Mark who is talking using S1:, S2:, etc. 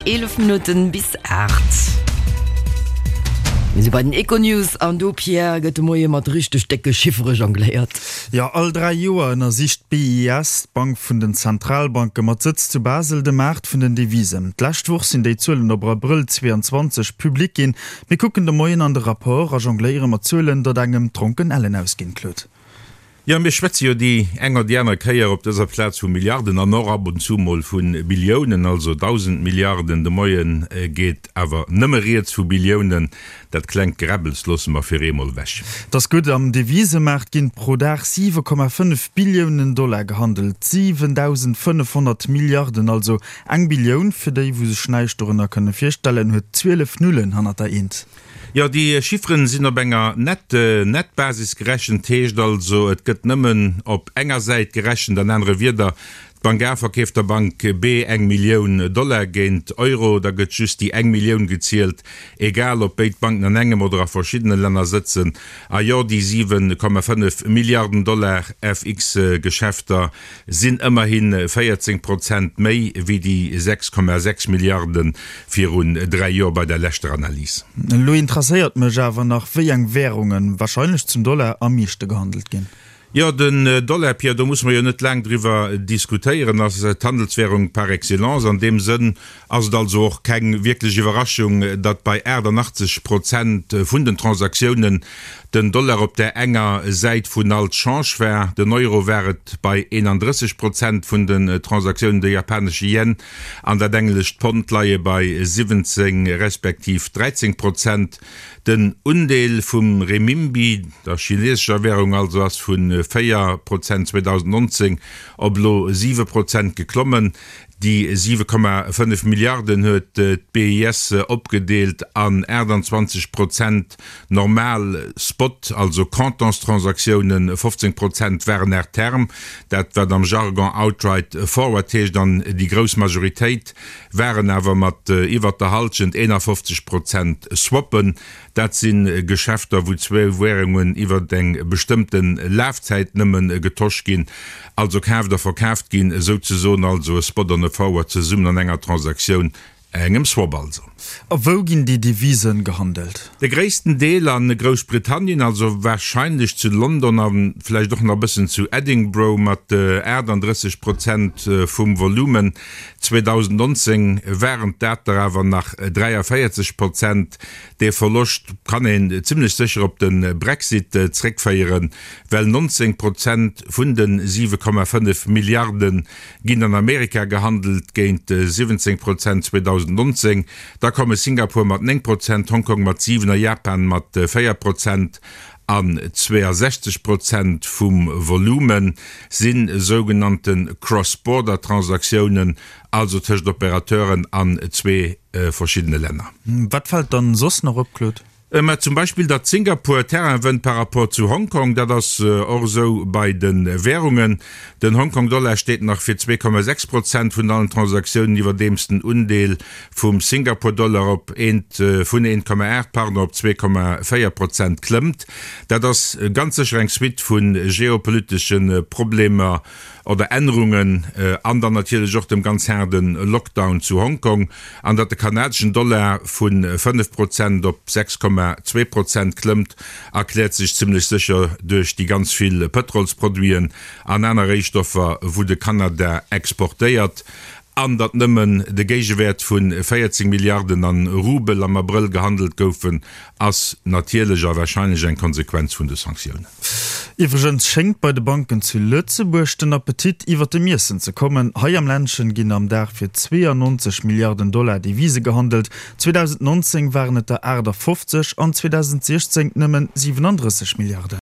S1: 11 Minutten bis 8. Mir si bei den Econews an do, Pierre, gëtt de Moie mat richteg décke Chiffere jongléiert.
S2: Jo, all 3 Joer ënnersicht d'BIS, d'Bank vun den Zentralbanke mat Sëtz zu Basel, de Maart vun den Devisen. D'lescht Woch sinn déi Zuelen op Abrëll 22 public ginn. Mir kucken de Moien an de Rapport a jongléiere mat Zuelen, datt engem d'Dronken ellen ausginn, Claude.
S3: Jo, mir schwätze jo déi eng oder déi aner Kéier op dëser Plaz vu Milliarden an och ab und zu mol vu Billiounen, also 1.000 Milliarden. De Moie geet awer nëmme rieds vu Billiounen. Dat klengt Geräbbels loosse mer fir eemol ewech.
S2: 't ass gutt, am Devisemaart ginn pro Dag 7,5 Billiounen Dollar gehandelt, 7.500 Milliarden also. Eng Billioun, fir déi wou sech näischt dorënner kënne virstellen, huet 12 Nullen hannert der Eent.
S3: Jo, déi Chifferen sinn op enger Net-Net-Basis gerechent, heescht also, et gëtt nëmmen op enger Säit gerechent. An anere Wieder, d'Bank A verkeeft der Bank B eng Millioun Dollar géint Euro, da gëtt just déi eng Millioun gezielt, egal ob béid Banken an engem oder a verschiddene Länner sëtzen. A jo, déi 7,5 Milliarden Dollar FX-Geschäfter sinn ëmmerhi 14 Prozent méi wéi déi 6,6 Milliarde virun 3 Joer bei der leschter Analys.
S2: Elo interesséiert mech awer nach, wéi eng Währungen, wahrscheinlech zum Dollar, am meeschte gehandelt ginn.
S3: Jo, den Dollar, Pierre, do musse mer jo net laang driwwer diskutéieren, ass d'Handelswährung par excellence. An deem Sënn ass et also och keng wierklech Iwwerraschung, datt bei 88 Prozent vun den Transaktiounen den Dollar op där enger Säit vun all Change war. Den Euro war et bei 31 Prozent vun den Transaktiounen, de japanesche Yen an dat englescht Pond leie bei 17 respektiv 13 Prozent. Den Undeel vum Remimbi, der chinesescher Wärung also, ass vu 4 Prozent 2019 op elo 7 Prozent geklommen. Déi 7,5 Milliarden huet d'BIS opgedeelt an 28 Prozent normal Spot, also Comptantstransaktiounen, 15 Prozent waren à terme, dat wat am Jargon outright forward heescht, an déi grouss Majoritéit waren awer mat iwwert der Halschent, 51 Prozent, Swappen. Dat si Geschäfter, wou zwou Währungen iwwer eng bestëmmte Lafzäit nëmme getosch ginn, also kaaft a verkaaft ginn, souzesoen also e Spot an e Forward zesummen an enger Transaktioun, engem Swap also.
S2: A wou ginn déi Devisen gehandelt?
S3: De gréissten Deel a Groussbritannien, also warscheinlech zu London a vläicht och nach e bëssen zu Edinburgh mat 38 Prozent vum Volumen. 2019 waren dat der awer nach 43 Prozent. Dee Verloscht kann een zimmlech sécher op de Brexit zréckféieren, well 19 Prozent vun de 7,5 Milliarde ginn an Amerika gehandelt, géint 17 Prozent 2019. Da komme Singapur mat 9 Prozent, Hongkong mat 7 a Japan mat 4 Prozent. An 62 Prozent vum Volume si sougenannte Cross-Border-Transaktiounen, also tëscht Operateuren an zwee verschiddene Länner.
S2: Wat fält dann soss nach op, Claude?
S3: Mä zum Beispill, datt Singapur Terrain wënnt par rapport zu Hongkong. Dat ass och esou bei de Währungen. Den Hongkong-Dollar steet nach fir 2,6 Prozent vun allen Transaktiounen, iwwerdeems den Undeel vum Singapur-Dollar op eent vun 1,8 pardon op 2,4 Prozent klëmmt. Dat ass ganz sécher eng Suite vu geopolitesche Problemer oder Ännerungen an dann natierlech och dem ganz haarde Lockdown zu Hongkong. An datt de kanadeschen Dollar vu 5 Prozent op 6,2 Prozent klëmmt, erkläert sech zimmlech sécher duerch déi ganz vill Pëtrolsproduiten an aner Réistoffer, wou de Kanada exportéiert. An datt nëmmen de Géigewäert vu 14 Milliarden an Rubel am Abrëll gehandelt goufen, ass natierlech a warscheinlech eng Konsequenz vun de Sanktiounen.
S2: Iwwregens schéngt bei de Banken zu Lëtzebuerg den Appetit iwwer dem Iessen ze kommen. Hei am Ländchen ginn am Dag fir 92 Milliarden Dollar Devise gehandelt. 2019 waren et der 58 an 2016 nëmmen 37 Milliarden.